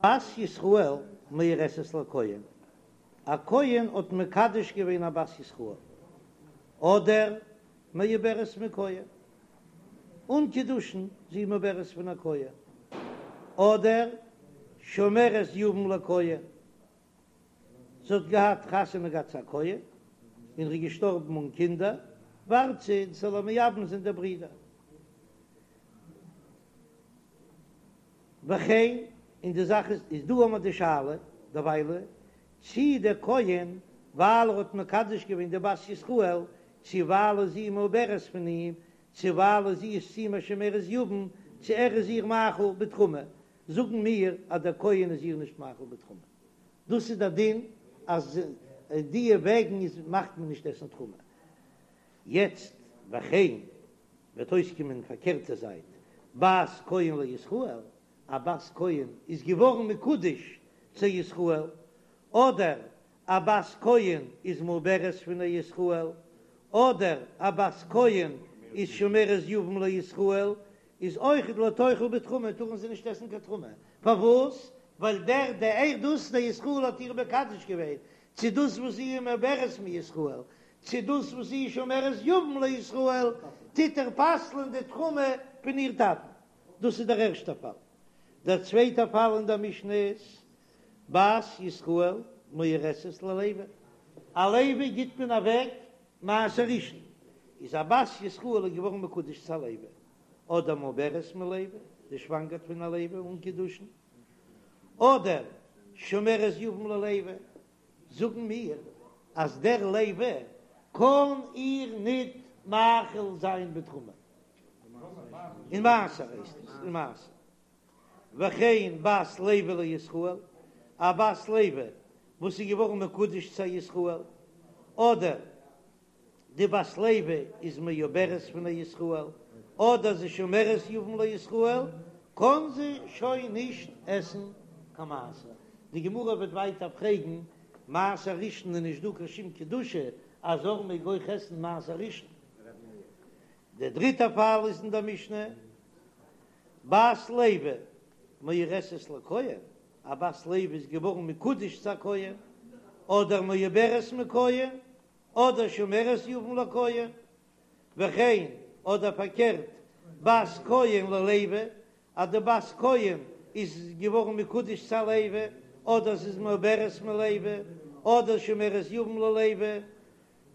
בת ישראל מאורסת לכהן, א כהן האט מקדש געווען א בת ישראל, אדער מעוברת מכהן, אן קידושין, זי איז מעוברת פון א כהן, אדער שומרת יבם לכהן, זי האט געהאט חתונה געהאט צו א כהן, און ער איז געשטארבן אן קינדער, ווארט זי ס'זאל איר מייבם זיין דער ברודער. וכן, און די זאך איז, איז דא האמער די שאלה, דערוויילע, צי דער כהן, ווייל ער האט מקדש געווען די בת ישראל, צי ווייל זי איז מעוברת פון אים, צי ווייל זי איז צו אים א שומרת יבם, צי ער איז איר מאכיל בתרומה, זאגן מיר אז דער כהן איז איר נישט מאכיל בתרומה. דאס איז דער דין אז דיע וועגן איז מאכט מען נישט עסן תרומה. יעצט וכן וועט אויסקומען פארקערטע זייט, בת כהן לישראל, א בת כהן איז געווארן מקודש צו ישראל, אדער א בת כהן איז מעוברת פון א ישראל, אדער א בת כהן איז שומרת יבם לישראל, איז אויכעט לא תאכל בתרומה, טארן זיי נישט עסן קיין תרומה, פארוואס? ווייל דער דער דאס דער ישראל האט איר מקדש געווען, צו דאס וואס זי איז מעוברת מישראל, צו דאס וואס זי איז שומרת יבם לישראל, טוט ער פסל'ען די תרומה פון איר טאטן. דאס איז דער ערשטער פאל. דער צווייטער פאל אין דער משנה איז, בת ישראל מאורסת ללוי, א לוי גיט מען אוועק מעשר ראשון, איז א בת ישראל איז געווארן מקודש צו א לוי, אדער מעוברת מלוי, זי שוואנגערט פון א לוי אן קידושין, אדער שומרת יבם ללוי, זאגן מיר אז דער לוי קען איר ניט מאכיל זיין בתרומה, אין מעשר הייסט עס, אין מעשר. וכן בת לוי לישראל, א בת לוי וואס איז געווארן מקודש צו א ישראל, אדער די בת לוי איז מעוברת פון א ישראל, אדער זי שומרת יבם לישראל, קען זי שוין נישט עסן קיין מעשר. די גמרא וועט ווייטער פרעגן, מעשר ראשון איז נישט דא קיין שום קדושה, א זר מעג אויך עסן מעשר ראשון. דער דריטער פאל איז אין דער משנה, בת לוי מאורסת לכהן, א בת לוי איז געווארן מקודש צו א כהן, אדער מעוברת מכהן, אדער שומרת יבם לכהן, וכן, אדער פארקערט, בת כהן ללוי, אז די בת כהן איז געווארן מקודש צו א לוי, אדער זי איז מעוברת מלוי, אדער שומרת יבם ללוי,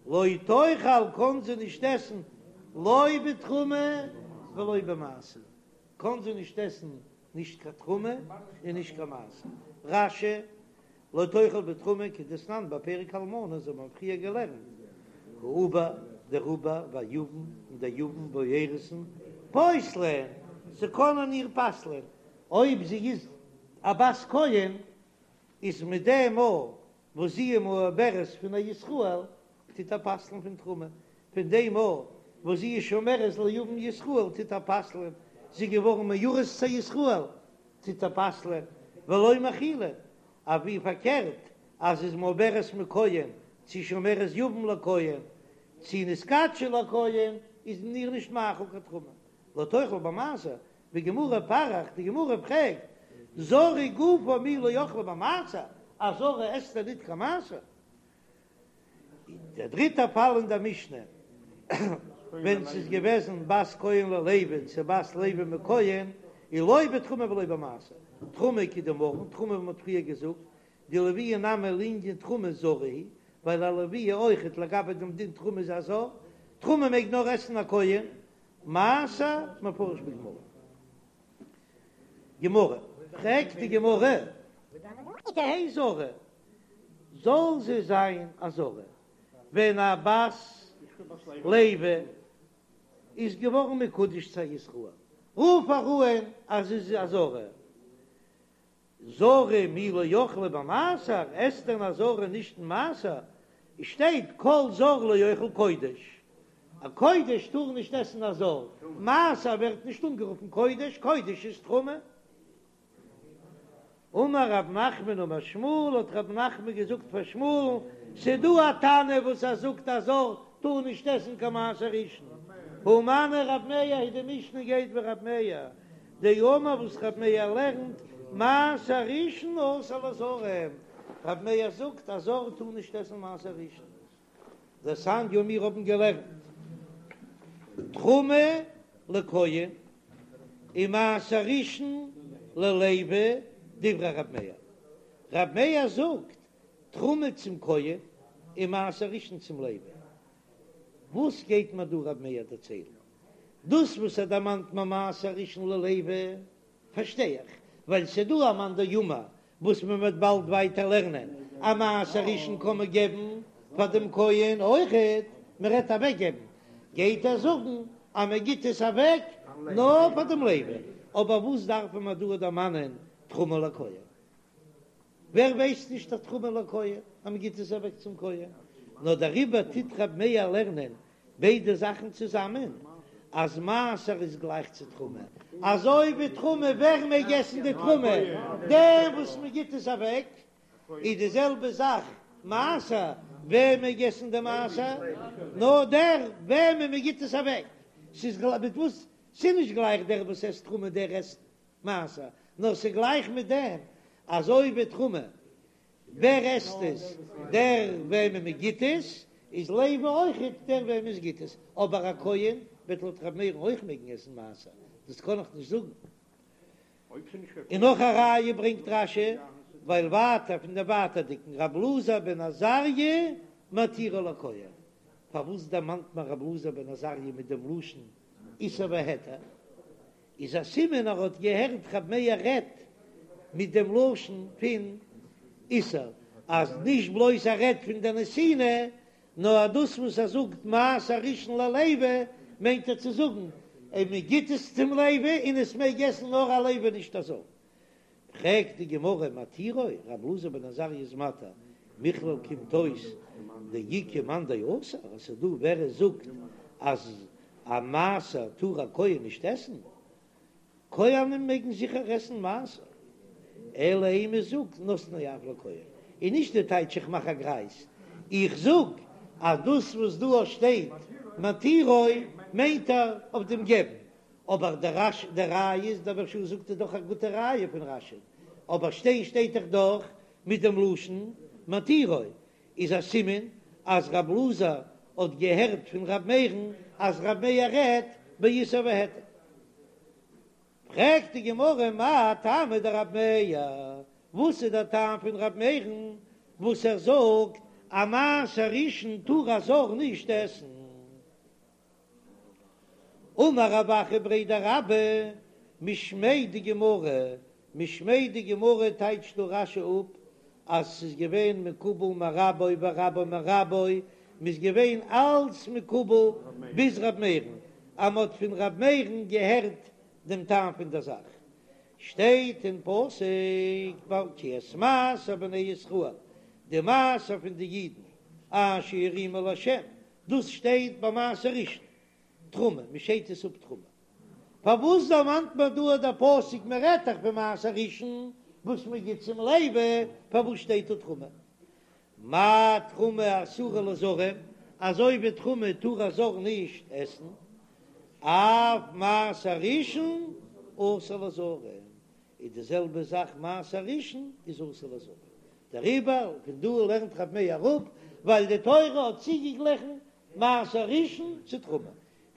לא תאכל קאן זי נישט עסן לא בתרומה ולא במעשר, קאן זי נישט עסן נישט קיין תרומה און נישט קיין מעשר. רש"י, לא תאכל בתרומה כדתנן בפרק אלמנה, אזוי האבן מיר פריער געלערנט, העובר, דער עובר, והיבם, און דער יבם והאירוסין, פוסלין, זיי קענען איר פסל'ען, אויב זי איז א בת כהן, איז מיט דעם מאל וואס זי איז מעוברת פון א ישראל, טוט ער פסל'ן פון תרומה, פון דעם מאל וואס זי איז שומרת ליבם ישראל, טוט ער פסל'ן, זי איז געווארן מאורס צו ישראל, טוט ער פסל'ן, ולא מאכילין, אבער פארקערט, אז זי איז מעוברת מכהן, צו שומרת יבם לכהן, צו נתקדשה לכהן, איז מען איר נישט מאכיל קיין תרומה, לא תאכל במעשר, בגמרא פריך, די גמרא פרעגט, זרה גופה מי לא אכלה במעשר, א זרה עסט דען ניט קיין מעשר? דער דריטער פאל אין דער משנה, ווען ס'איז געוועזן בת כהן ללוי צו בת לוי מכהן, איז לא בתרומה ולא במעשר, תרומה כדאמרן, תרומה ווי מ'האט פריער געזאגט, דלויה נמי לענין תרומה זרה היא, ווייל א לויה אויכעט לגבי דעם דין תרומה איז א זר, תרומה מעג נאר עסן א כהן, מעשר מפרש בגמרא. גמרא, פרעגט די גמרא, תהא זרה, זאל זי זיין א זרה, ווען א בת לוי איז געווארן מקודש צו א ישראל, רוף איר אן אז זי איז א זרה, זרה מי לא אכלה במעשר, עסט דען א זרה נישט אין מעשר? עס שטייט כל זר לא יאכל קודש, א קודש טאר נישט עסן א זר, מעשר ווערט נישט אנגערופן קודש, קודש איז תרומה. אמר רב נחמן אמר שמואל, האט רב נחמן געזאגט פאר שמואל'ן, ס'דא א תנא וואס ער זאגט א זר טאר נישט עסן קיין מעשר ראשון, הא מני רב מאיר היא, די משנה גייט ווי רב מאיר, דאמר וואס רב מאיר לערנט. מעשר ראשון אסור לזרים, רב מאיר זאגט א זר טאר נישט עסן מעשר ראשון. דתניא מיר האבן געלערנט תרומה לכהן און מעשר ראשון ללוי דברי רב מאיר, רב מאיר זאגט תרומה צום כהן און מעשר ראשון צום לוי, וואס גייט מיר דא רב מאיר דערציילן? דאס וואס ער דערמאנט מיר מעשר ראשון ללוי פארשטיי איך, ווייל ס'דא א מאן דאמר וואס מען וועט באלד ווייטער לערנען אז מעשר ראשון קען מען געבן פאר דעם כהן אויכעט, מען רעדט אוועק געבן, גייט ער זאגן אז מען גיט עס אוועק נאר פאר דעם לוי, אבער וואס דארף מען דא דערמאנען תרומה לכהן? ווער ווייסט נישט אז תרומה לכהן אז מען גיט עס אוועק צום כהן? נאר דעריבער טוט רב מאיר לערנען ביידע זאכן צוזאמען, אז מעשר איז גלייך צו תרומה, אזוי ווי תרומה, ווער מעג עסן די תרומה? דער וואס מען גיט עס אוועק, איז די זעלבע זאך מעשר, ווער מעג עסן די מעשר? נאר דער וועמען מען גיט עס אוועק, ס'איז גלייך מיט וואס? ס'איז נישט גלייך דער וואס עסט תרומה דער עסט מעשר, נאר ס'איז גלייך מיט דעם, אזוי ווי תרומה ווער עסט עס? דער וועמען מען גיט עס, איז לוי אויכעט דער וועמען עס גיט עס, אבער א כהן וועט לויט ר' מאיר'ן אויך מעגן עסן מעשר, דאס קען איך נישט זאגן. און נאך א ראיה ברענגט רש"י, ווייל ווייטער פון דעם ווייטערדיגן רב אלעזר בן עזריה מתירו לכהן, פארוואס דערמאנט מען רב אלעזר בן עזריה מיט דעם לשון איסור והיתר? איז א סימן ער האט געהערט ר' מאיר רעדט מיט דעם לשון פון איסור, אז נישט בלויז ער רעדט פון די נתינה, נאר אז דאס וואס ער זאגט מעשר ראשון ללוי מיינט ער צו זאגן אז מען גיט עס צום לוי און עס מעג עסן נאר א לוי נישט א זר. פרעגט די גמרא מתירו, ר' אלעזר בן עזריה איז מתיר, מכלל קומט אויס דאיכא מאן דאסר, אז ס'איז דא ווער עס זאגט אז א מעשר טאר א כהן נישט עסן, כהנים מעגן זיכער עסן מעשר, אלא אימא זאג נותנו אף לכהן, און נישט די טייטש איך מאך א גרייז, איך זאג אז דאס וואס דא שטייט מתירו מיינט ער אויף דעם געבן, אבער דער רש די ראיה איז דער מהרש"א זאגט איז דאך א גוטע ראיה פון רש"י, אבער שטיין שטייט דאך דאך מיט דעם לשון מתירו, איז א סימן אז רב אלעזר האט געהערט פון ר' מאיר'ן אז ר' מאיר רעדט באיסור והיתר. פרעגט די גמרא מאי טעמא דרב מאיר, וואס איז דער טעם פון ר' מאיר'ן וואס ער זאגט אז מעשר ראשון טאר א זר נישט עסן? אמר רב אחא בריה דרבה, משמיה דגמרא, משמיה דגמרא טייטשט דא רש"י אפ אז ס'איז געווען מקובל מרבו ורבו מרבו, מ'איז געווען אלץ מקובל ביז ר' מאיר'ן, אז מ'האט פון ר' מאיר'ן געהערט דעם טעם פון דער זאך. שטייט אין פסוק כי את מעשר בני ישראל, די מעשר פון די אידן, אשר ירימו לה', דאס שטייט ביי מעשר ראשון, תרומה, מען שיידט עס אפ תרומה. פארוואס דערמאנט מען דא דער פסוק מען רעדט דאך פון מעשר ראשון וואס מען גיט צום לוי, פארוואס שטייט דא תרומה? מה תרומה אסורה לזרים, אזוי ווי תרומה טאר א זר נישט עסן, אף מעשר ראשון אסור לזרים, איז די זעלבע זאך מעשר ראשון איז אסור לזרים, דעריבער פון דא לערנט רב מאיר אראפ, ווייל די תורה האט צוגעגליכן מעשר ראשון צו תרומה.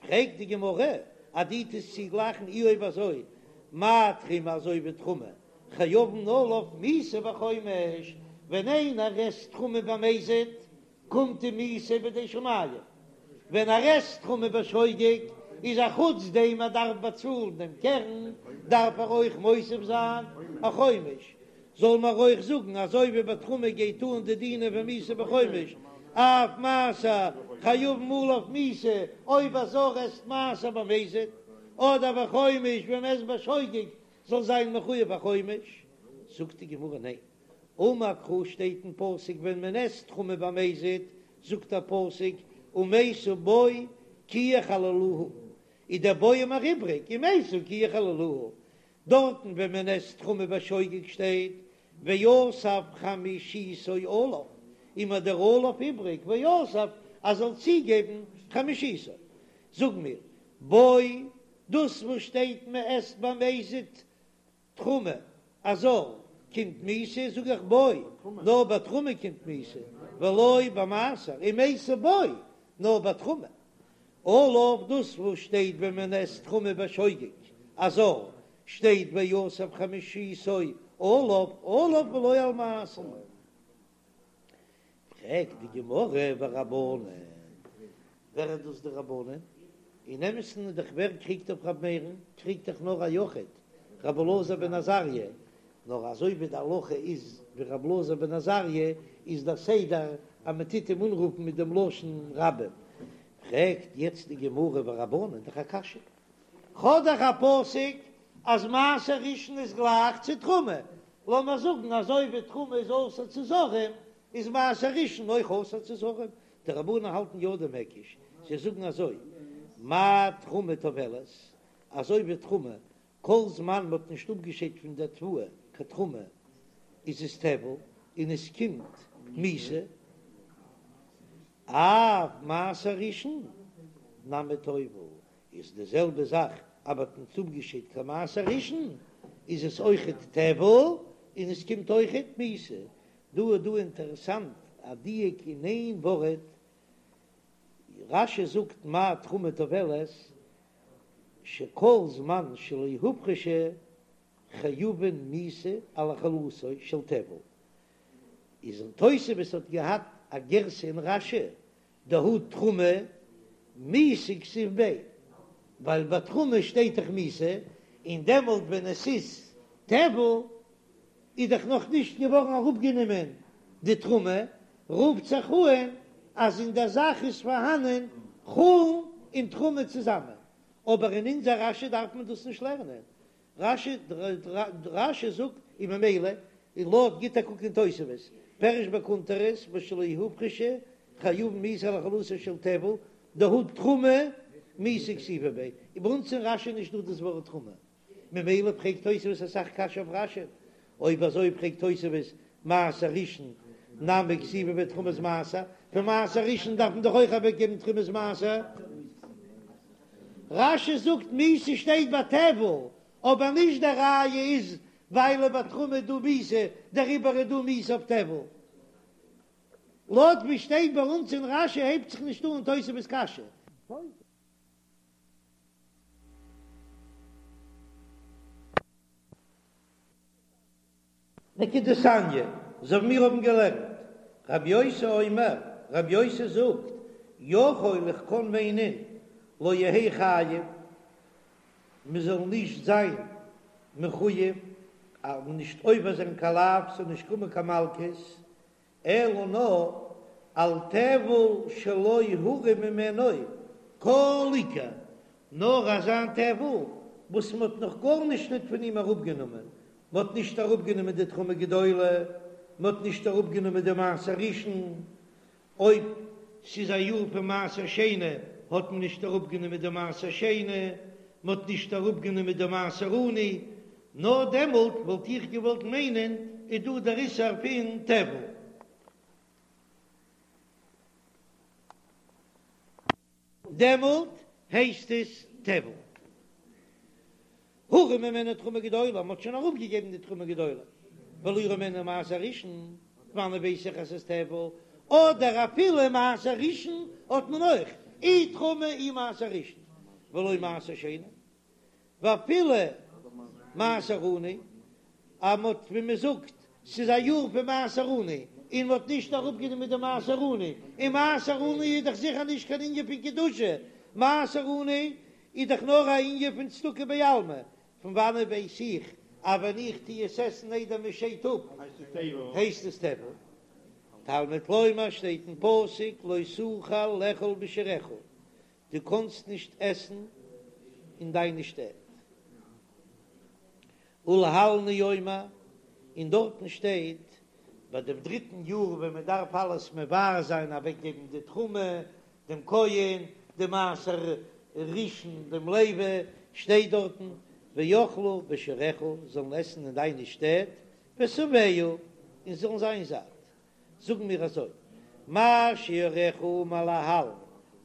פרעגט די גמרא, אז דו טוסט צוגלייכן אי אויב אזוי מה תרומה אזוי ווי תרומה חייבין עליו מיתה בחומש, ווען איינער עסט תרומה במזיד קומט אים מיתה בידי שמים, ווען ער עסט תרומה בשוגג איז א חוץ דעם ער דארף באצאלן דעם קרן דארף ער אויך מוסיף זיין א חומש, זאל מען אויך זאגן אזוי ווי ביי תרומה גייט אן די דינים פון מיתה בחומש אף מעשר חייבין עליו מיתה אויב א זר עסט מעשר במזיד אדער בחומש ווען מען עסט בשוגג זאל זיין מחויב א חומש, זאגט די גמרא ניין אמר קרא שטייט אין פסוק ווען מען עסט תרומה במזיד זאגט דער פסוק ומתו בו כי יחללוה איז דער בו מיר איבריג ומתו כי יחללוה דארטן ווען מען עסט תרומה בשוגג שטייט ואסף חמישיתו עליו, איז מיר דער עליו איבריג ואסף אז זאל צוגעבן חמישיתו. זאג מיר בו דאס וואס שטייט מען עסט במזיד תרומה. א זר קומט מיתה, זאג איך בו, נאר ביי תרומה קומט מיתה, ולא במעשר, ומתה בו, נאר ביי תרומה. עליו דאס וואס שטייט ווען מען עסט תרומה בשוגג, א זר, שטייט ויסף חמישיתו עליו, עליו ולא על מעשר. פרעגט די גמרא ורבנן, ווער איז דאס די רבנן? אין אמת'ן איז דאך ווער קריגט אויף ר' מאיר'ן? קריגט דאך נאר א יחיד, ר' אלעזר בן עזריה, נאר אזוי ווי די הלכה איז ווי ר' אלעזר בן עזריה, איז דער סדר אז מען טוט אים אנרופן מיט דעם לשון רבים. פרעגט יעצט די גמרא ורבנן, דאך א קשיא, כ'האב דאך א פסוק אז מעשר ראשון איז גלייך צו תרומה, לאמיר זאגן אזוי ווי תרומה איז אסור צו זרים, איז מעשר ראשון אויך אסור צו זרים. די רבנן האלטן יא דעם היקש, זיי זאגן אזוי, מה תרומה טובלת, אזוי ווי תרומה, כל זמן מ'האט נישט אפגעשיידט פון דער תבואה קיין תרומה, איז עס טבל און עס קומט מיתה, אף מעשר ראשון נמי טובל, איז די זעלבע זאך אז מ'האט נישט אפגעשיידט קיין מעשר ראשון איז עס אויכעט טבל און עס קומט אויכעט מיתה. דא איז דא אינטערעסאנט א דיוק אין איין ווארט, רש"י זאגט מה תרומה טובלת שכל זמן שלא הופרשה חייבין מיתה על אכילתו של טבל, איז אין תוספות האט געהאט א גירסא אין רש"י דהא תרומה מיתה כתיב ביה, ווייל ביי תרומה שטייט דאך מיתה, און דעמאלט ווען עס איז טבל איז דאך נאך נישט געווארן אראפגענומען די תרומה, רופט זיך אן אז אין דער זאך איז פארהאנען חולין און תרומה צוזאמען, אבער אין אונזער רש"י דארף מען דאס נישט לערנען, רש"י רש"י זאגט און ממילא און לויט גיט א קוק אין תוספות פירש בקונטרס בשלא הופרשה חייבין מיתה על אכילתו של טבל דהא תרומה מיתה כתיבא ביה און ביי אונז אין רש"י נישט דא דאס ווארט תרומה ממילא פרעגט תוספות אסאך קשיא אויף רש"י אויב אזוי פרעגט תוספות מעשר ראשון נמי כתיבא ביה תרומת מעשר פון מעשר ראשון דארף מען דאך אויך אוועק געבן תרומת מעשר. רש"י זאגט מיתה שטייט ביי טבל, אבער נישט די ראיה איז ווייל ביי תרומה איז דא מיתה דעריבער איז דא מיתה אויף טבל. לויט ווי שטייט ביי אונז אין רש"י הייבט זיך נישט אן תוספות קשיא. וכדתניא, אזוי ווי מיר האבן געלערנט, רבי יוסי אומר, רבי יוסי זאגט, יכול איך קען מיינען, לא יהא חייב, מען זאל נישט זיין מחויב, אז נישט עובר זיין קיין לאו, ס'זאל נישט קומען קיין מלקות, אלא נאר על טבל שלא הורם ממנו כל עיקר, נאר אזא טבל וואס מען האט נאך גארנישט ניט פון אים אראפגענומען, מען האט נישט אראפגענומען די תרומה גדולה, מען האט נישט אראפגענומען די מעשר ראשון, אויב ס'איז א יאר פון מעשר שני האט מען נישט אראפגענומען די מעשר שני, מען האט נישט אראפגענומען די מעשר עני, נאר דעמאלט וואלט איך געוואלט מיינען איז דא דער איסור פון טבל. דעמאלט הייסט עס טבל. הורם ממנו תרומה גדולה, מ'האט שוין אראפגעגעבן די תרומה גדולה, ולא הורם ממנו מעשר ראשון, וואנען ווייס איך אז ס'איז טבל, אדער אפילו מעשר ראשון האט מען אויך, אי תרומה אי מעשר ראשון, ולא מעשר שני. ואפילו מעשר עני, אז מ'האט ווי מ'זאגט ס'איז א יאר פון מעשר עני און מ'האט נישט אראפגענומען די מעשר עני, און מעשר עני איז דאך זיכער נישט קיין ענין פון קדושה, מעשר עני איז דאך נאר א ענין פון צדקה בעלמא, פון וואנעט ווייס איך אז ווען איך טו עס עסן איידער מ'שיידט אפ הייסט עס טבל? תלמוד לומר שטייט אין פסוק לא תוכל לאכול בשעריך, דו קאנסט נישט עסן אין דיינע שטעט. ולהלן הוא אומר, און דארטן שטייט ביי דעם דריטן יאר ווען מען דארף אלעס מבער זיין, אוועקגעבן די תרומה דעם כהן, די מעשר ראשון דעם לוי, שטייט דארטן ואכלו בשעריך, זאלן עסן אין דיינע שטעט, ושבעו, און זאלן זיין זאט. זאגן מיר אזוי, מה שעריך האמור להלן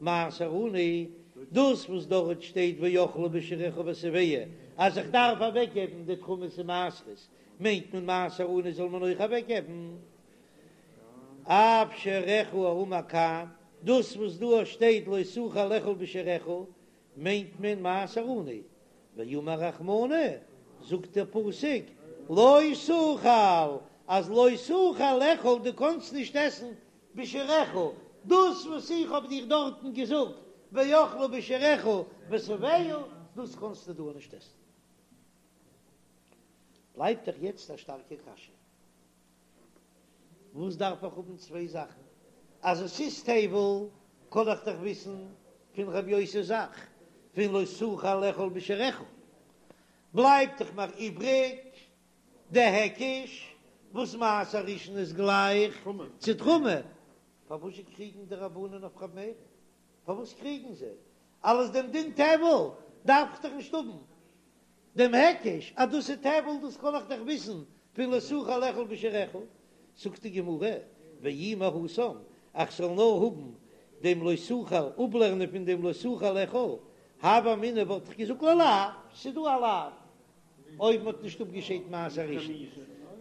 מעשר עני, דאס וואס דארט שטייט ואכלו בשעריך ושבעו, אז איך דארף אוועקגעבן די תרומות און מעשרות. מיינט מען מעשר עני זאל מען אויך אוועקגעבן. אף שעריך האמור כאן, דאס וואס דא שטייט לא תוכל לאכול בשעריך מיינט מען מעשר עני, ואמר רחמנא, זאגט דער פסוק לא תוכל, אז לא תוכל לאכול דו קאנסט נישט עסן בשעריך, דאס וואס איך האב דיר דארטן געזאגט ואכלה בשעריך ושבעה, דאס קאנסטו דא נישט עסן. בלייבט דאך יעצט א שטארקע קשיא, וואס דארף איך האבן צוויי זאכן? אז עס איז טבל קען איך דאך וויסן פון רבי יוסי'ס זאך פון לא תוכל לאכול בשעריך, בלייבט דאך מיר איבריג די היקש וואס מעשר ראשון איז גלייך צו תרומה, פארוואס קריגן די רבנן אויף ר' מאיר? פארוואס קריגן זיי? אלס דעם דין טבל דארף איך דאך נישט האבן דעם היקש אז דאס איז טבל, דאס קען איך דאך וויסן פון לא תוכל לאכול בשעריך. זאגט די גמרא, ואי מהתם, איך זאל נאר האבן דעם לא תוכל, אפלערנען פון דעם לא תוכל לאכול, הוה אמינא וואלט איך געזאגט ללאו, ס'איז דא א לאו אויב מ'האט נישט אפגעשיידט מעשר ראשון,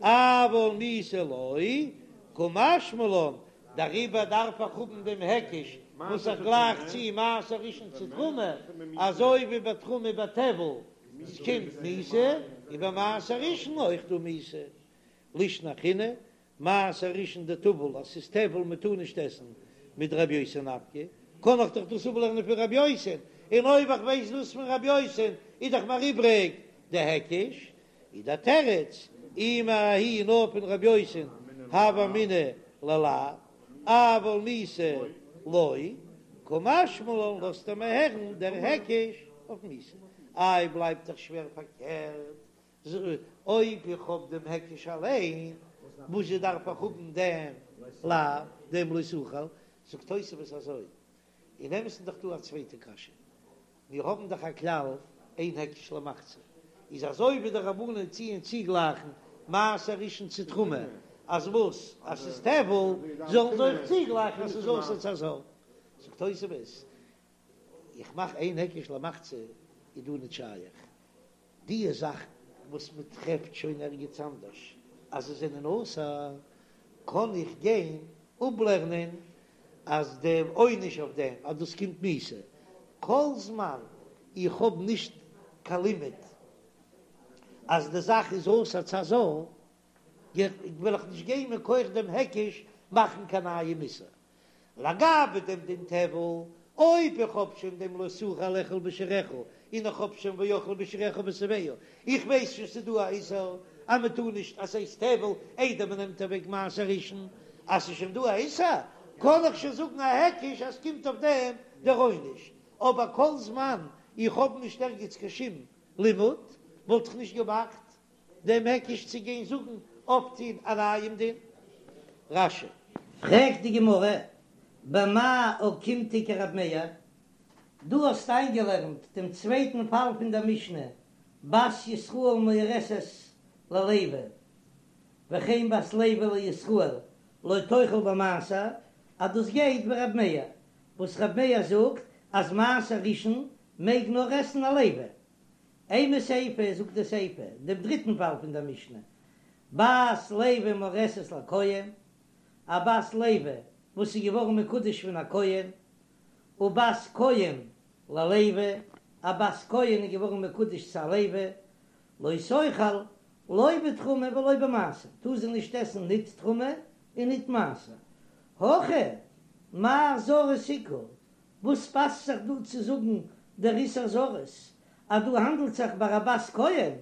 אבל מיתה לא, קא משמע לן, דעריבער דארף איך האבן דעם היקש וואס איך גלייך צו מעשר ראשון צו תרומה, אזוי ווי ביי תרומה ביי טבל קומט מיתה, און ביי מעשר ראשון אויך דא מיתה. לישנא אחרינא, מעשר ראשון דטביל אז ס'איז טבל מען טאר נישט עסן מדרבי יוסי נפקא, קען איך דאך דאס אפלערנען פון רבי יוסי, און אויב איך ווייס דאס פון רבי יוסי איז דאך מיר איבריג די היקש, איז דער תירוץ אי מההיא נאר פון רבי יוסי הוה אמינא ללאו, אבל מיתה לא, קא משמע לן לאזט ער מיר הערן דער היקש אויף מיתה, איי בלייבט דאך שווער פארקערט אויב איך האב דעם היקש אליין, וואזשע דארף איך האבן דעם לאו, דעם לא תוכל? זאגט תוספות אזוי, אין אמת'ן איז דאך דא א צווייטע קשיא, מיר האבן דאך א כלל אין היקש למחצה, איז אזוי ווי די רבנן טוען צוגלייכן מעשר ראשון צו תרומה, אז וואס? אז ס'איז טבל, זאלן זיי אויך צוגלייכן אז ס'איז אסור צו א זר. זאגט תוספות, איך מאך אין היקש למחצה איז דא נישט שייך, די זאכן וואס מען טרעפט שוין ערגעץ אנדערש אז זיי זענען אסור, קען איך גיין אפלערנען אז דער עונש אויף דעם אז דאס קומט מיתה, כל זמן איך האב נישט קיין לימוד אז די זאך איז אסור צו א זר, וועל איך נישט גיין מכח דעם היקש מאכן קיין נייעם איסור. לגבי דעם דין טבל, אויב איך האב שוין דעם לא תוכל לאכול בשעריך, און איך האב שוין ואכלה בשעריך ושבעה, איך ווייס שוין ס'איז דא א איסור אז מען טאר נישט אז ס'הייסט טבל איידער מען נעמט אוועק מעשר ראשון, אז ס'איז שוין דא א איסור קען איך שוין זאגן א היקש אז ס'קומט אויף דעם דער עונש, אבער כל זמן איך האב נישט ערגעץ קיין שום לימוד וואלט איך נישט געמאכט דעם היקש צו גיין זאגן אויפטון א נייעם דין. רש"י. פרעגט די גמרא, במאי אוקימתא כרב מאיר, דו האסט איינגעלערנט דעם צווייטן פאל פון דער משנה, בת ישראל מאורסת ללוי, וכן בת לוי לישראל, לא תאכל במעשר, אז דאס גייט ווי רב מאיר, וואס רב מאיר זאגט אז מעשר ראשון מעג נאר עסן א לוי, אימא סיפא זאגט די סיפא, דעם דריטן פאל פון דער משנה, בת לוי מאורסת לכהן, א בת לוי וואס איז געווארן מקודש פון א כהן, ובת כהן ללוי, א בת כהן איז געווארן מקודש צו א לוי, לא תאכל לא בתרומה ולא במעשר, טאר זי נישט עסן ניט תרומה און ניט מעשר. הכא מאי זרות איכא, וואס פאסט זיך דא צו זאגן דער איסור זרות אז דא האנדלט זיך ביי א בת כהן,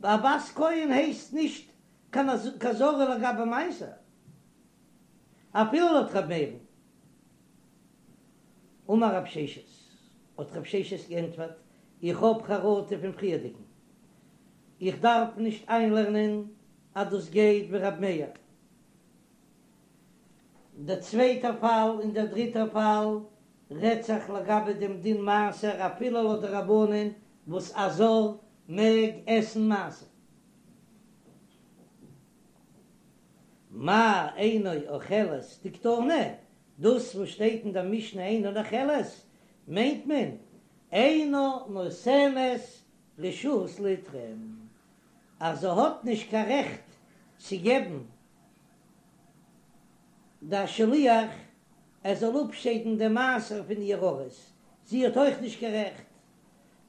א בת כהן הייסט נישט קיין זרה לגבי מעשר, אפילו לויט ר' מאיר'ן. אמר רב ששת, האט רב ששת געענטפערט, איך האב חרטה פון פריערדיגן, איך דארף נישט איינלערנען אז דאס גייט ווי ר' מאיר. דער צווייטער פאל און דער דריטער פאל רעדט זיך לגבי דעם דין מעשר אפילו לויט די רבנן וואס א זר מעג עסן מעשר. מאי אינה אוכלת דקתני, דאס וואס שטייט אין דער משנה אינה אוכלת מיינט מען אינה נותנת רשות לתרום. אז זי האט נישט קיין רעכט צו געבן די שליח ער זאל אפשיידן די מעשר פון איר ארוס, זי האט אויך נישט קיין רעכט,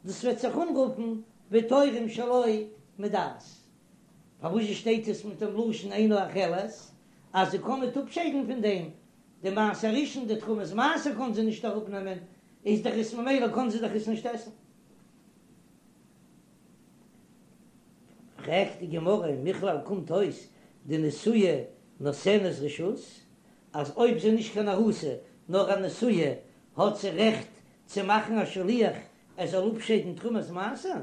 דאס וועט זיך אנרופן ותורם שלא מדעת. פארוואס שטייט עס מיט דעם לשון אינה אוכלת, אז זי קען ניט אפשיידן פון דעם די מעשר ראשון, די תרומת מעשר קען זי נישט אראפנעמען, איז דאך עס ממילא קען זי דאך עס נישט עסן. פרעגט די גמרא, מכלל קומט אויס דנשואה נותנת רשות, אז אויב זי איז נישט קיין ארוסה נאר א נשואה האט זי רעכט צו מאכן א שליח ער זאל אפשיידן תרומת מעשר?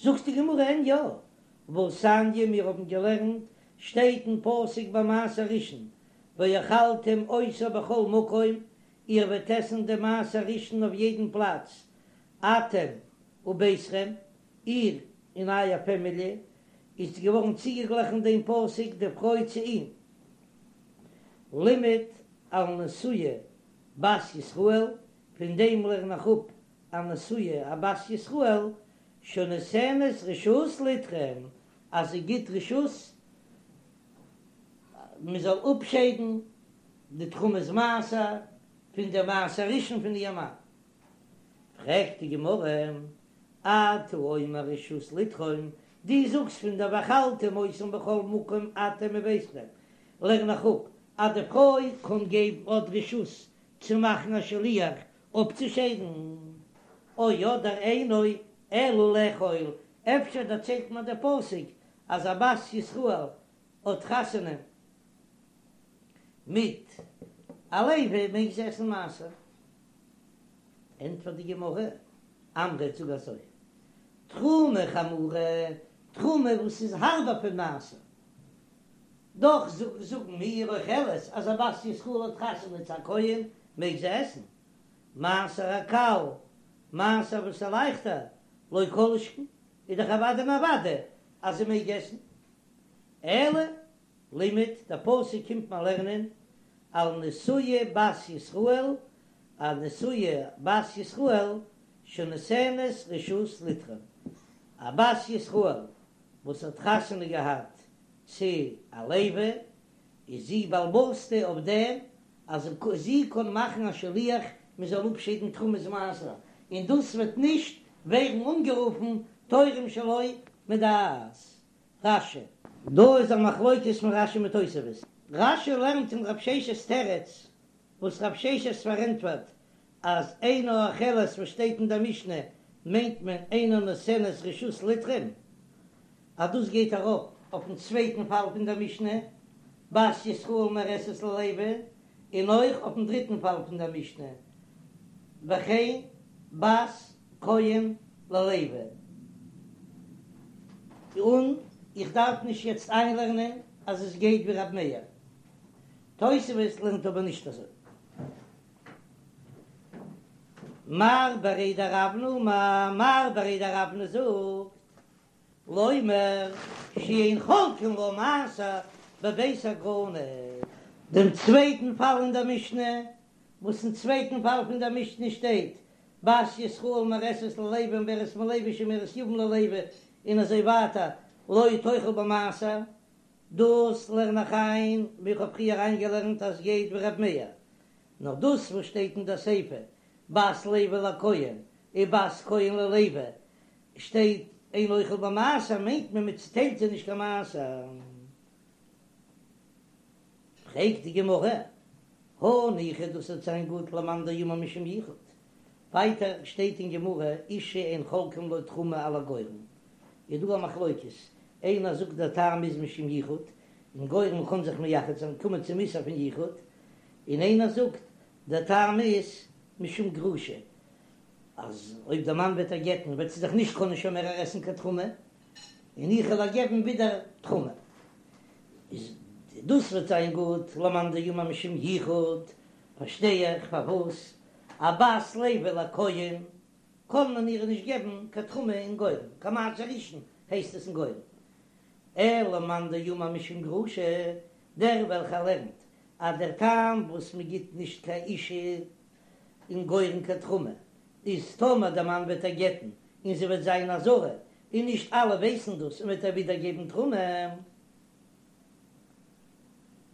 זאגט די גמרא אין יא, והתניא מיר האבן געלערנט שטייט אין פסוק ביי מעשר ראשון ואכלתם אותו בכל מקום, איר וועט עסן דעם מעשר ראשון אויף יעדן פלאץ, אתם וביתכם, איר און אייער פעמיליע, איז געווארן צוגעגליכן דעם פסוק די פרוי צו אים, לימד על נשואה בת ישראל, פון דעם לערן איך אפ א נשואה א בת ישראל שנותנת רשות לתרום, אז זי גיט רשות מען זאל אפשיידן די תרומת מעשר פון די מעשר ראשון פון איר מאן. פרעגט די גמרא, אתה אומר רשות לתרום, דו זאגסט פון דער ואכלתם אותם בכל מקום אתם וביתכם, לערן איך אפ אז די פרוי קען געבן האט רשות צו מאכן א שליח אפצושיידן, או אדער אינו אלא לאכול, אפשר דערציילט מיר דער פסוק אז א בת ישראל האט חתונה מיט א לוי מעג זי עסן מעשר, ענטפערט די גמרא, אמרת זאג אזוי, תרומה חמורה, תרומה וואס איז הארבער פון מעשר, דאך זאגן מיר אוכלת אז א בת ישראל האט חתונה צו א כהן מעג זי עסן, מעשר הקל, מעשר וואס איז לייכטער, לא כל שכן, איז דאך אוודאי און אוודאי אז זי מעג עסן. אלא לימד, דער פסוק קומט מיר לערנען על נשואה בת ישראל, א נשואה בת ישראל שנותנת רשות לתרום, א בת ישראל וואס האט חתונה געהאט צו א לוי, איז זי בעל הבית'טע אויף דעם אז זי קען מאכן א שליח מען זאל אפשיידן תרומת מעשר, און דאס וועט נישט ווערן אנגערופן תורם שלא מדעת רש"י. דא איז א מחלוקת פון רש"י מיט תוספות. רש"י לערנט אין רב ששת'ס תירוץ וואס רב ששת פארענטפערט אז אינה אוכלת וואס שטייט אין דער משנה מיינט מען אינה נותנת רשות לתרום, אז דאס גייט ארויף אויפן צווייטן פאל פון דער משנה, בת ישראל מאורסת ללוי, און אויך אויפן דריטן פאל פון דער משנה, וכן בת כהן ללוי. און איך דארף נישט יעצט איינלערנען אז עס גייט ווי רב מאיר. תוספות לערנט אבער נישט אזוי. מר בריה דרבנא אמר, מר בריה דרבנא זאגט, לומר שאין חולקין לה מעשר בבית הגרנות. דעם צווייטן פאל אין דער משנה, וואס אין צווייטן פאל פון דער משנה שטייט, בת ישראל מאורסת ללוי ומעוברת מלוי שומרת יבם ללוי און אזוי ווייטער, לא תאכל במעשר, דאס לערן איך איין ווי איך האב פריער איינגעלערנט אז גייט ווי ר' מאיר, נאר דאס וואס שטייט אין דער סיפא בת לוי לכהן און בת כהן ללוי שטייט אין אוכל במעשר מיינט מען מען צוטיילט זיי נישט קיין מעשר. פרעגט די גמרא, הניחא דאס וועט זיין גוט למאן דאמר משום יחוד, ווייטער שטייט אין גמרא אשה אין חולקין לה תרומה על הגורן, איז דא א מחלוקת, איינער זאגט דער טעם איז משום יחוד, אין גורן קען זיך מייחד זיין קומען צום איסור פון יחוד, און איינער זאגט דער טעם איז משום גרושה, אז אויב דער מאן וועט איר גט'ן וועט זי זיך נישט קענען שוין מער עסן קיין תרומה, און איך וועל איר געבן ווידער תרומה, איז דאס וועט זיין גוט למאן דאמר משום יחוד, פארשטיי איך פארוואס א בת לוי לכהן קען מען איר נישט געבן קיין תרומה אין גורן, קיין מעשר ראשון הייסט עס אין גורן, אלא למאן דאמר משום גרושה, דער וועלכער לערנט אז דער טעם וואס מען גיט נישט קיין אישה אין גורן קיין תרומה איז טאמער דער מאן וועט איר גט'ן און זי וועט זיין א זרה. און נישט אלע ווייסן דאס און מ'וועט איר ווידער געבן תרומה.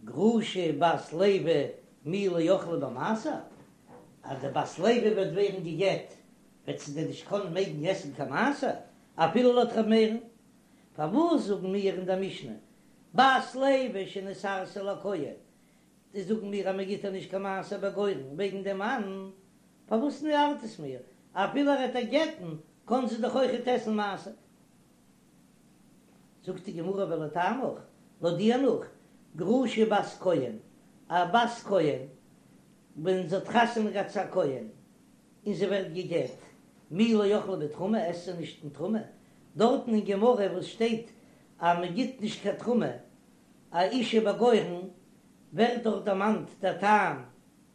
גרושה בת לוי מי לא אכלה במעשר, אז די בת לוי וועט ווערן גע'גט וועט זי דען נישט קענען מעגן עסן קיין מעשר אפילו לויט ר' מאיר'ן? פארוואס זאגן מיר אין דער משנה בת לוי שנתארסה לכהן, די זאגן מיר אז מען גיט איר נישט קיין מעשר בגורן וועגן דעם מאן, פארוואס ארט עס מיר? אפילו ער וועט איר גט'ן קען זי דאך אויכעט עסן מעשר. זאגט די גמרא ולטעמיך, לויט דיר נאך, גרושה בת כהן, א בת כהן ווען זי האט חתונה געהאט צו א כהן און זי ווערט גע'גט, מי לא אכלה בתרומה, עסט זי נישט אין תרומה, דארטן אין גמרא וואס שטייט אז מען גיט נישט קיין תרומה א אישה בגורן, ווערט דארט דערמאנט דער טעם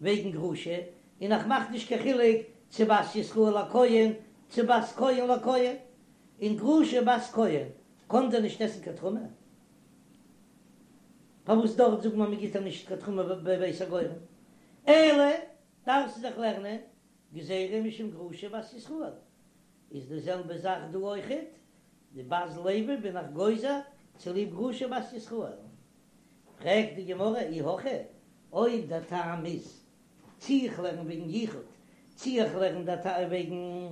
וועגן גרושה, און איך מאך נישט קיין חילוק צו בת ישראל לכהן צו בת כהן לכהן, און גרושה בת כהן קען דען נישט עסן קיין תרומה? פארוואס דארט זאגט מען מ'גיט איר נישט קיין תרומה בבית הגורן? אלא דארפסטו זיך לערנען גזירה משום גרושה בת ישראל, איז די זעלבע זאך דא אויכעט, די בת לוי בין איך גוזר צוליב גרושה בת ישראל. פרעגט די גמרא אי הכי, אויב דער טעם איז צי איך לערן וועגן יחוד, צי איך לערן דער טעם וועגן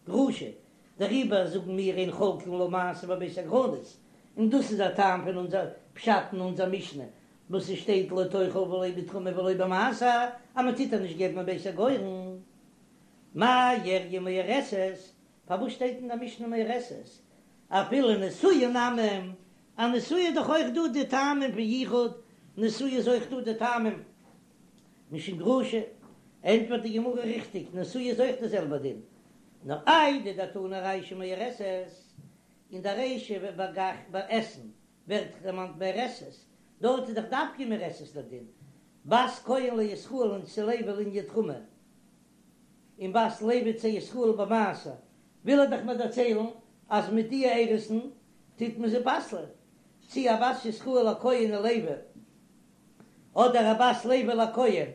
גרושה, דעריבער זאגן מיר אין חולקין לה מעשר בבית הגרנות, און דאס איז דער טעם פון אונזער פשט אין אונזער משנה וואס עס שטייט לא תאכל ולא בתרומה ולא במעשר, אז מען טוט איר נישט געבן בבית הגורן. מאי איריא מאורסת, פארוואס שטייט אין דער משנה מאורסת? אפילו נשואה נמי, א נשואה איז דאך אויך דא די טעמים פון יחוד, נשואה איז אויך דא די טעמים משום גרושה, ענטפערט די גמרא ריכטיג, נשואה איז אויך די זעלבע דין, נאר איידי דתנא רישא מאורסת, אין די רישא ביי עסן ווערט דערמאנט מאורסת, דארט איז דאך דווקא מאורסת דער דין, בת כהן לישראל און צו לוי לענין תרומה, און בת לוי צו ישראל במעשר, וויל ער דאך מיר דערציילן אז מיט די אירוסין טוט מען זי פסל'ען, צי א בת ישראל לכהן ולוי, אדער א בת לוי לכהן,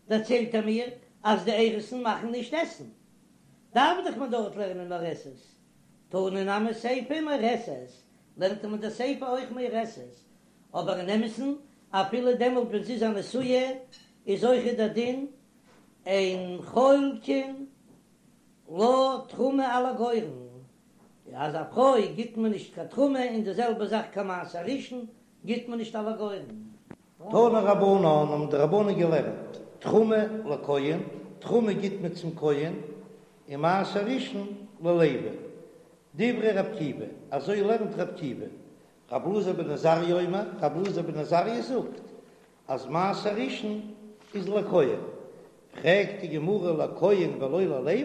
דערציילט ער מיר אז די אירוסין מאכן נישט עסן, דארף דאך מען דארט לערנען מאורסת, תנא נמי סיפא מאורסת, לערנט מען די סיפא אויך מאורסת, אבער אין אמת'ן אפילו דעמאלט ווען זי איז א נשואה איז אויכעט דער דין אין חולקין לה תרומה על הגורן, אז א פרוי גיט מען נישט קיין תרומה און די זעלבע זאך קיין מעשר ראשון גיט מען נישט על הגורן. תנו רבנן האבן די רבנן געלערנט, תרומה לכהן, תרומה גיט מען צום כהן, און מעשר ראשון ללוי. דברי רבי עקיבא, אזוי לערנט רבי עקיבא. רבי אלעזר בן עזריה אומר, רבי אלעזר בן עזריה זאגט אז מעשר ראשון איז לכהן. פרעגט די גמרא לכהן ולא ללוי,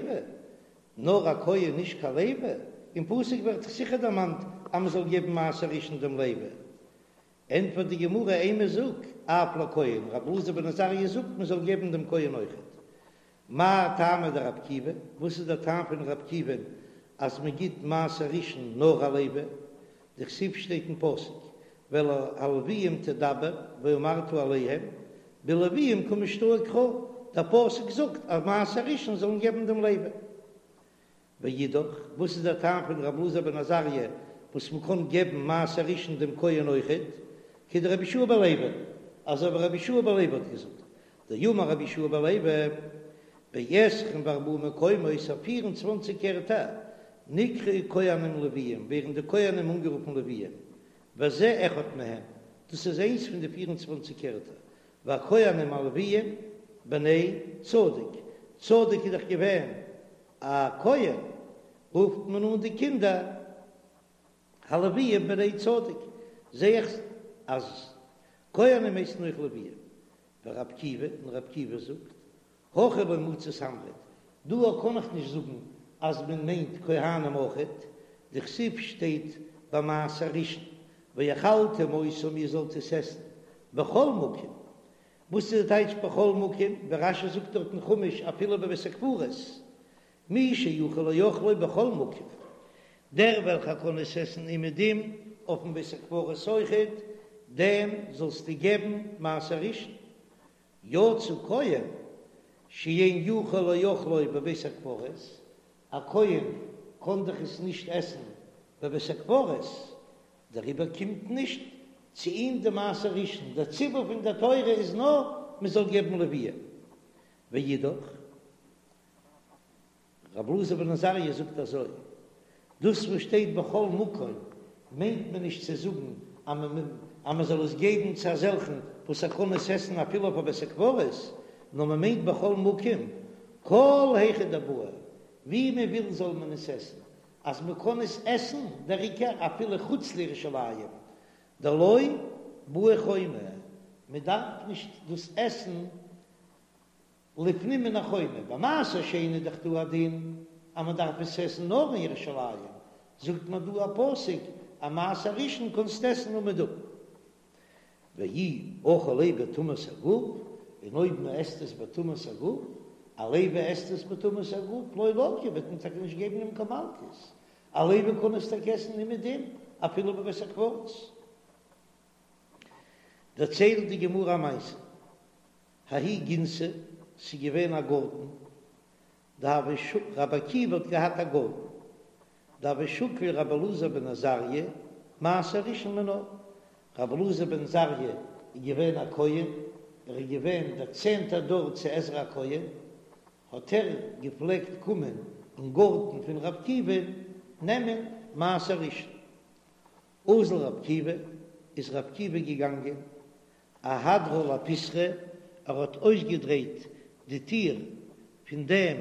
נאר א כהן נישט קיין לוי? אין פסוק ווערט דאך זיכער דערמאנט אז מען זאל געבן מעשר ראשון דעם לוי. ענטפערט די גמרא אימא זאג אף לכהן, רבי אלעזר בן עזריה זאגט מען זאל געבן דעם כהן אויכעט. מאי טעמא דרבי עקיבא, וואס איז דער טעם פון רבי עקיבא'ן אז מען גיט מעשר ראשון נאר א לוי? דכתיב שטייט אין פסוק ואל הלוויים תדבר ואמרת אליהם בלוויים קא משתעי קרא, דער פסוק זאגט אז מעשר ראשון זאל מען געבן דעם לוי. ואידך, וואס איז דער טעם פון רבי אלעזר בן עזריה וואס מען קען געבן מעשר ראשון דעם כהן אויכעט, כדרבי יהושע בן לוי, אזוי ווי רבי יהושע בן לוי האט געזאגט, דאמר רבי יהושע בן לוי, בעשרים וארבעה מקומות אויף פיר און צוואנציג ערטער, נקראו כהנים לוויים, ווערן די כהנים אנגערופן לוויים, וזה אחד מהם, דאס איז איינס פון די פיר און צוואנציג ערטער, והכהנים הלוויים בני צדוק, צדוק איז דאך געווען א כהן, רופט מען אן די קינדער הלוויים בני צדוק, זע איך אז כהנים הייסן אויך לוויים, ורבי עקיבא, און רבי עקיבא זאגט, הכא לא מצית אמרת, דא קען איך נישט זאגן אז מען מיינט כהנים אויכעט, דכתיב שטייט ביי מעשר ראשון, ואכלתם אותם איר זאלט עס עסן בכל מקום, וואס איז די טייטש בכל מקום, ווי רש"י זאגט דארט אין חומש אפילו בבית הקברות, מי שיכול לאוכלו בכל מקום, דער וועלכער קען עס עסן אומעדום אויפן בית הקברות אויכעט, דעם זאלסטו געבן מעשר ראשון, יצא כהן שאין יכול לאוכלו בבית הקברות, א כהן קען דאך עס נישט עסן. בבית הקברות, דעריבער קומט נישט צו אים די מעשר ראשון, דער ציווי פון דער תורה איז נאר מען זאל געבן לוויים. ואידך, רבי אלעזר בן עזריה זאגט אזוי, דאס וואס שטייט בכל מקום מיינט מען נישט צו זאגן אז מען זאל עס געבן צו אזעלכן וואס ער קען עס עסן אפילו אויף א בית הקברות, נאר מען מיינט בכל מקום, כל היכא דבעי, ווי מען וויל זאל מען עס עסן, אז מען קען עס עסן דער עיקר אפילו חוץ לירושלים, דלא בעי חומה, מען דארף נישט דאס עסן לפנים מן החומה, ביי מעשר שני איז דאך דא א דין אז מען דארף עס עסן נאר אין ירושלים, זאגט מען דא א פסוק אז מעשר ראשון קענסטו עסן אומעדום. ואי אכיל ליה בטומאת הגוף, און אויב מען עסט עס בטומאת הגוף, א לוי עסט עס בטומאת הגוף, לא לקי וועט מען טאקע נישט געבן אים קיין מלקות, א לוי קען עס טאקע עסן אומעדום אפילו בבית הקברות. דערציילט די גמרא א מעשה, ההיא גינתא, ס'איז געווען א גארטן, דהוה שקיל, רבי עקיבא האט געהאט א גארטן, דהוה שקיל רבי אלעזר בן עזריה, מעשר ראשון מינה, רבי אלעזר בן עזריה איז געווען א כהן, ער איז געווען דער צענטער דור צו עזרא הכהן, האט ער געפלעגט קומען אין גארטן פון רבי עקיבא נעמען מעשר ראשון. אזל רבי עקיבא, איז רבי עקיבא געגאנגען, אהדרה לפיתחא, ער האט אויסגעדרייט די טיר פון דעם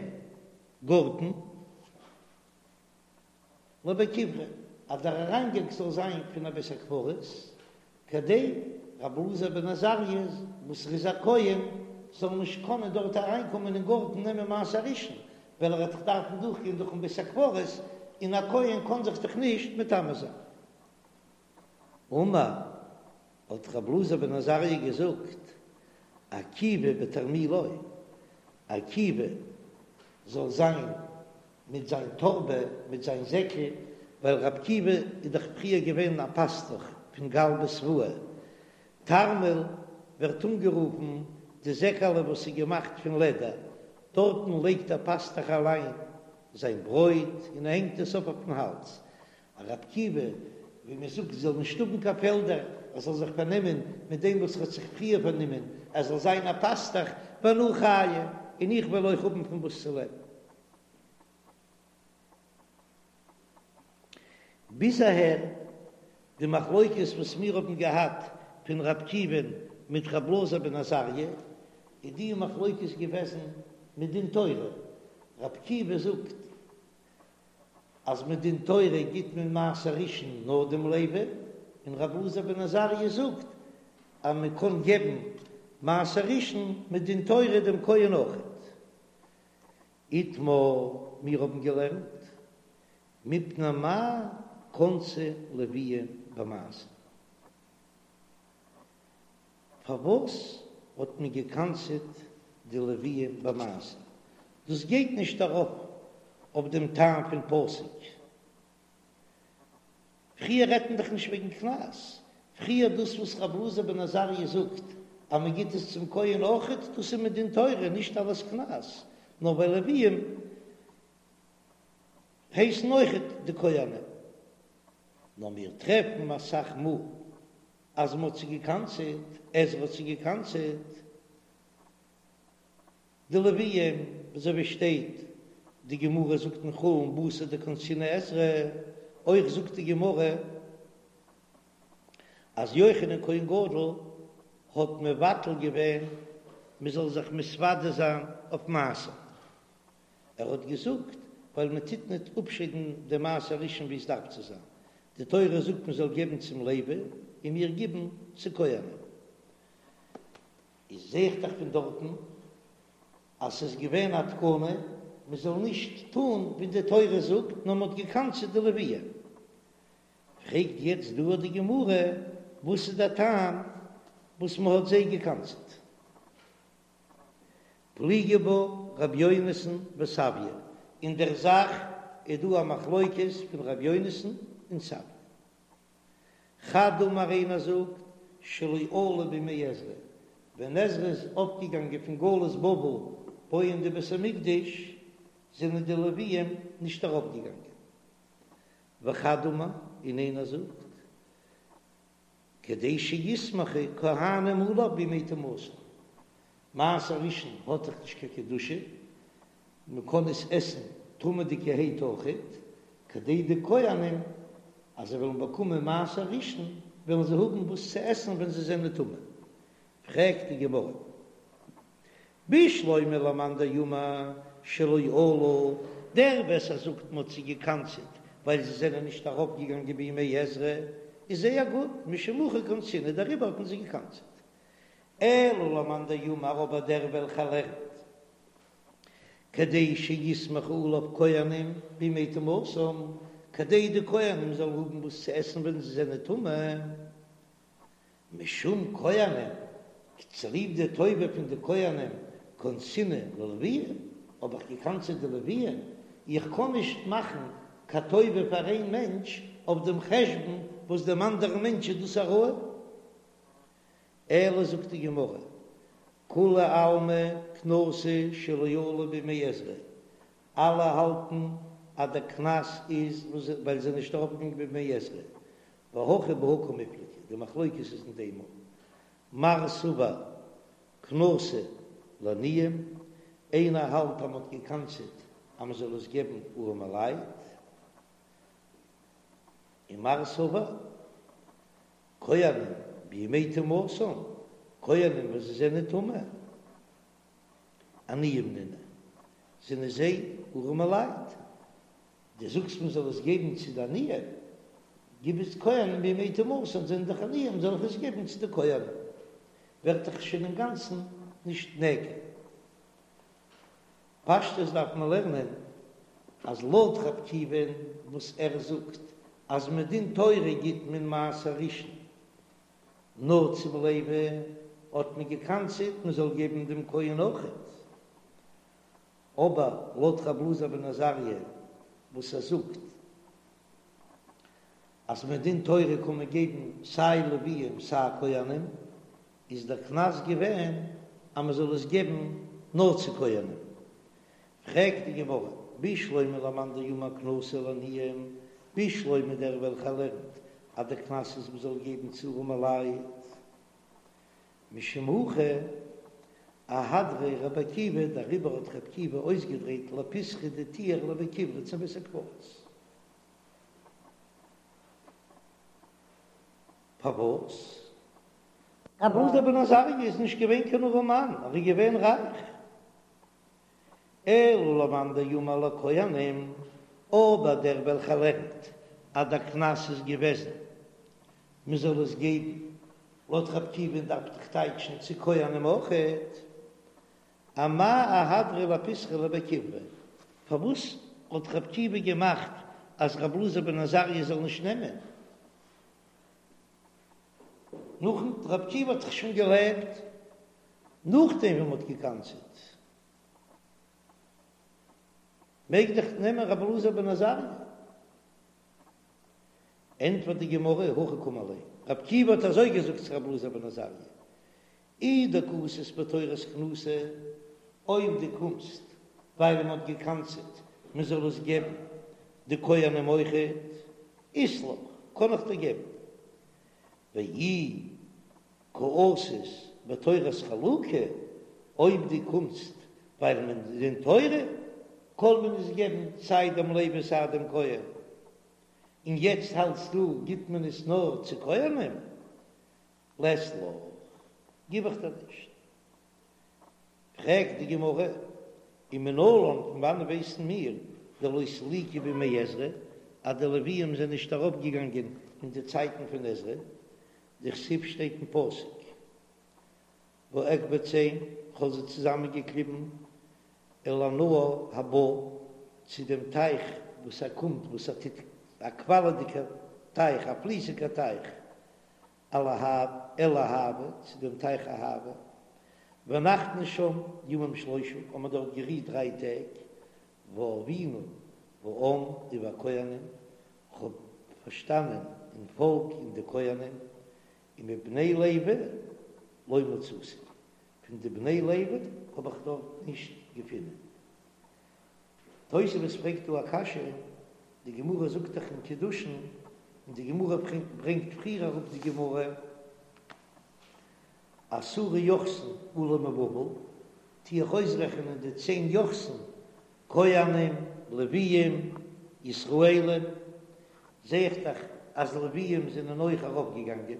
גארטן, לבי קברי, אז דער אריינגאנג זאל זיין פון א בית הקברות, כדי רבי אלעזר בן עזריה, וואס ער איז א כהן, זאל נישט קענען דארט אריינקומען אין גארטן נעמען מעשר ראשון, ווייל ער וועט דאך דארפן דורכגיין דורכן בית הקברות, און א כהן קען זיך דאך נישט מטמא זיין. אמר, האט רבי אלעזר בן עזריה געזאגט, עקיבא בתרמילו, עקיבא זאל זיין מיט זיין טארבע, מיט זיין זעקל, ווייל רבי עקיבא איז דאך פריער געווען א פאסטוך פון גלבא סבאי, תרמיל ווערט אנגערופן די זעקעלע וואס איז געמאכט פון לעדער, דארטן לייגט דער פאסטוך אליין זיין ברויט און ער הענגט עס אויף אויפן האלז, רבי עקיבא, ווי מען זאגט, זאל נישט האבן קיין פעלדער, ער זאל זיך פארנעמען מיט דעם וואס ער האט זיך פריער פארנומען, ער זאל זיין א פאסטוך, ואנא חיי, און איך וועל אויך האבן פון וואס צו לעבן. ביז אהער די מחלוקת וואס מיר האבן געהאט פון רבי עקיבא'ן מיט רבי אלעזר בן עזריה, איז די מחלוקת געוועזן מדין תורה, רבי עקיבא זאגט אז מדין תורה גיט מען מעשר ראשון נאר דעם לוי, און רבי אלעזר בן עזריה זאגט אז מען קען געבן מעשר ראשון מדין תורה דעם כהן אויכעט. איתמר, מיר האבן געלערנט, מפני מה קנסו לוויים במעשר. פארוואס האט מען געקנס'עט די לוויים במעשר? דאס גייט נישט ארויף אויף דעם טעם פון פסוק. פריער רעדט מען דאך נישט וועגן קנס, פריער דאס וואס רבי אלעזר בן עזריה זאגט אז מען גיט עס צום כהן אויכעט, דאס איז מדין תורה, נישט אלס קנס, נאר ווייל לוויים הייסן אויכעט די כהנים. נאר מיר טרעפן אסאך מאל אז מען האט זיי געקנס'עט, עזרא האט זיי געקנס'עט, די לוויים, אזוי ווי שטייט, די גמרא זאגט אין חולין בתר דקנסינהו עזרא, אויך זאגט די גמרא אז יוחנן כהן גדול האט מבטל געווען מען זאל זיך מתוודה זיין אויף מעשר. ער האט געזאגט, ווייל מען טוט ניט אפשיידן די מעשר ראשון ווי עס דארף צו זיין, די תורה זאגט מען זאל געבן צום לוי, און מיר גיבן צו כהנים. איז זע איך דאך פון דארטן אז ס'איז געווען א תקנה מען זאל נישט טאן ווי די תורה זאגט, נאר מען האט געקנס'עט די לוויים. פרעגט יעצט דא די גמרא, וואס איז דער טעם וואס מען האט זיי געקנס'עט? פליגי בה ר' יונתן וסביא, אין דער זאך איז דא א מחלוקת פון ר' יונתן און סביא. חד אמר איינער זאגט שלא עלו בימי עזרא, ווען עזרא איז אויפגעגאנגען פון גלות בבל בויען די בית המקדש זענען די לוויים נישט ארויפגעגאנגען. וחד אמר, און איינער זאגט, כדי שיסמכו כהנים עליו בימי טומאתן. מעשר ראשון האט דאך נישט קיין קדושה, מען קען עס עסן טמא'דיגערהייט אויכעט, כדי די כהנים אז זיי וועלן באקומען מעשר ראשון וועלן זיי האבן וואס צו עסן ווען זיי זענען טמא. פרעגט די גמרא, בשלמא למאן דאמר שלא עלו, דער וואס ער זאגט מ'האט זיי געקנס'עט ווייל זיי זענען נישט ארויפגעגאנגען בימי עזרא, איז זייער גוט, משום הכי קנסינהו דעריבער האט מען זיי געקנס'עט. אלא למאן דאמר אבער דער וועלכער לערנט כדי שיסמכו עליו כהנים בימי טומאתם, כדי די כהנים זאלן האבן וואס צו עסן ווען זיי זענען טמא, משום כהנים, צוליב די טובה פון די כהנים, קנסינהו ללויים, האב איך געקנס'עט די לוויים, איך קען נישט מאכן קיין טובה פאר איין מענטש אויף דעם חשבון וואס דעם אנדערן מענטש איז דאס א רעה. אלא זאגט די גמרא, כולי עלמא קנסא שלא עלו בימי עזרא, אלע האלטן אז דער קנס איז ווייל זיי זענען נישט ארויפגעגאנגען בימי עזרא, והכא בהא קמיפלגי, די מחלוקת איז אין דעם, מר סבר קנסא לעניים, איינער האלט אז מען האט געקנס'עט אז מען זאל עס געבן ארעמע לייט, און מר סבר כהנים בימי טומאתן, כהנים וואס זיי זענען טמא, עניים נינהו, זענען זיי ארעמע לייט, דו זאגסט מען זאל עס געבן צו די עניים, גיב עס כהנים בימי טומאתן זענען דאך עניים זאל איך עס געבן צו די כהנים, ווערט דאך שוין אינגאנצן נישט נעקר. פשטות דארף מען לערנען אז לויט ר' עקיבא'ן וואס ער זאגט אז מדין תורה גיט מען מעשר ראשון נאר צום לוי האט מען געקנס'עט מען זאל געבן דעם כהן אויכעט, אבער לויט ר' אלעזר בן עזריה וואס ער זאגט אז מדין תורה קען מען געבן סיי לוויים סיי כהנים, איז דער קנס געווען אז מען זאל עס געבן נאר צו כהנים. פרעגט די גמרא, בשלמא למאן דאמר קנסא לעניים, בשלמא דער וועלכער לערנט אז דער קנס איז מען זאל געבן צו ארעמע לייט, משום הכי אהדריה רבי עקיבא, דעריבער האט רבי עקיבא אויסגעדרייט לפיתחא די טיר לבי קברי צום בית הקברות. פארוואס? רבי אלעזר בן עזריה איז נישט געווען קיין ארעמאן, ער איז געווען רייך. אלא למאן דאמר לכהנים, אבער דער וועלכער לערנט אז דער קנס איז געוועזן מען זאל עס געבן, לויט רבי עקיבא'ן דארף דאך טייטשן צו כהנים אויכעט, אמאי אהדריה לפיתחא לבי קברי, פארוואס האט רבי עקיבא געמאכט אז רבי אלעזר בן עזריה זאל נישט נעמען? נאכן רבי עקיבא האט דאך שוין געלעבט נאכדעם ווען מ'האט געקנס'עט, מעג דאך נעמען רבי אלעזר בן עזריה. ענטפערט די גמרא, הכי קאמר ליה, רבי עקיבא האט אזוי געזאגט צו רבי אלעזר בן עזריה, אי דקאתית בתורת קנסא, אויב דו קומסט ווייל מען האט געקנס'עט מען זאל עס געבן די כהנים אויכעט, אית לך, קען איך דיר געבן. ואי קאתית בתורת חלוקה, אויב דו קומסט ווייל מדין תורה קען מען עס געבן סיי דעם לוי סיי דעם כהן, און יעצט האלטסטו גיט מען עס נאר צו כהנים, לית לך, גיב איך דיר נישט. פרעגט די גמרא, ומנלן, פון וואנען ווייסן מיר דלא סליקו בימי עזרא, אז די לוויים זענען נישט ארויפגעגאנגען אין די צייטן פון עזרא, דכתיב שטייט אין פסוק, ואקבצם, כ'האב זיי צוזאמענגעקליבן, אל הנהר הבא, צו דעם טייך וואס ער קומט, וואס ער טוט, א קוואלעדיגער טייך, א פליסיגער טייך, אל אהוא, צו דעם טייך אהוא, ונחנו שם ימים שלושה, האבן מיר דארט גערוהט דריי טעג, ואבינה בעם ובכהנים, כ'האב פארשטאנען אין פאלק און די כהנים, ומבני לוי לא מצאתי, פון די בני לוי האב איך דארט נישט געפונען. תוספות פרעגט דא א קשיא. די גמרא זאגט דאך אין קידושין, און די גמרא ברענגט פריער אראפ די גמרא, עשרה יוחסין עלו מבבל, טו איך אויסרעכענען די צען יוחסין, כהנים, לוויים, ישראלים, זע איך דאך אז לוויים זענען אויך ארויפגעגאנגען.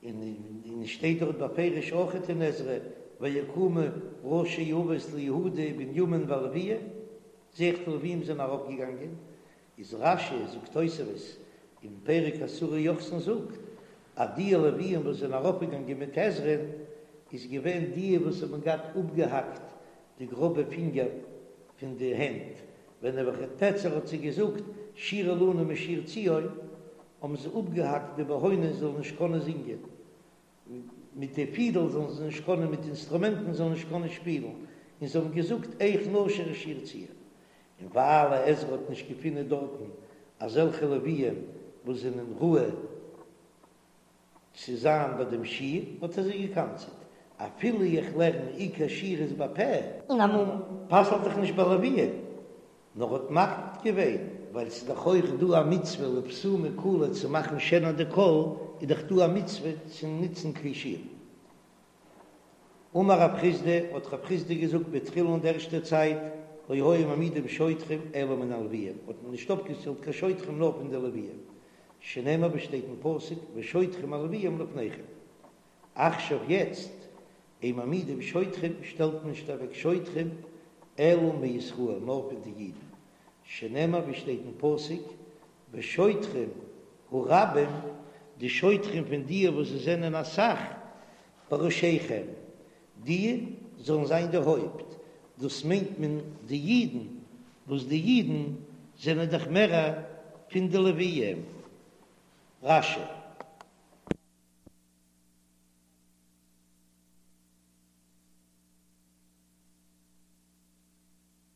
און עס שטייט דארט בפירוש אויכעט אין עזרא, ויקומו ראשי אבות ליהודה ובנימין והלוויים, זע איך די לוויים זענען ארויפגעגאנגען, איז רש"י זאגט תוספות אין פרק עשרה יוחסין זאגט אז די לוויים וואס זענען ארויפגעגאנגען מיט עזרא'ן איז געווען די וואס האבן געהאט אפגעהאקט די גראבע פינגער פון די הענט, ווען נבוכדנצר האט זיי געזאגט שירו לנו משיר ציון, האבן זיי אפגעהאקט די בהונות זאלן נישט קענען זינגען, מיט די פידל זאלן זיי נישט קענען, מיט אינסטרומענטן זאלן נישט קענען שפילן, און זיי האבן געזאגט איך נשיר את שיר ציון. און ווייל עזרא האט נישט געפונען דארטן אזעלכע לוויים וואס זענען ראוי צו זיין ביי דעם שיר, האט ער זיי געקנס'עט, אפילו איך לערן עיקר שיר איז בפה. און א מום. פסל'ט דאך נישט ביי לוויים, נאר האט מקפיד געווען, ווייל ס'איז דאך אויך דא א מצוה לבסומי קלא צו מאכן שענער די קול, איז דאך דא א מצוה צו נוצן כלי שיר. אמר רב חסדא, האט רב חסדא געזאגט בתחילה אין די ערשטע צייט, לא היו מעמידים שוטרים אלא מן הלוויים, האט מען נישט אויפגעשטעלט קיין שוטרים נאר פון די לוויים, שנאמר ווי שטייט אין פסוק ושוטרים הלוויים לפניכם. עכשיו יעצט, אין מעמידים שוטרים שטעלט מען נישט אוועק שוטרים אלא מישראל נאר פון די אידן, שנאמר ווי שטייט אין פסוק ושוטרים הרבים, די שוטרים פון די וואס זיי זענען אסאך, בראשיכם, די זאלן זיין די הויפט, דאס מיינט מען די אידן, וואס די אידן זענען דאך מערער פון די לוויים. רש"י.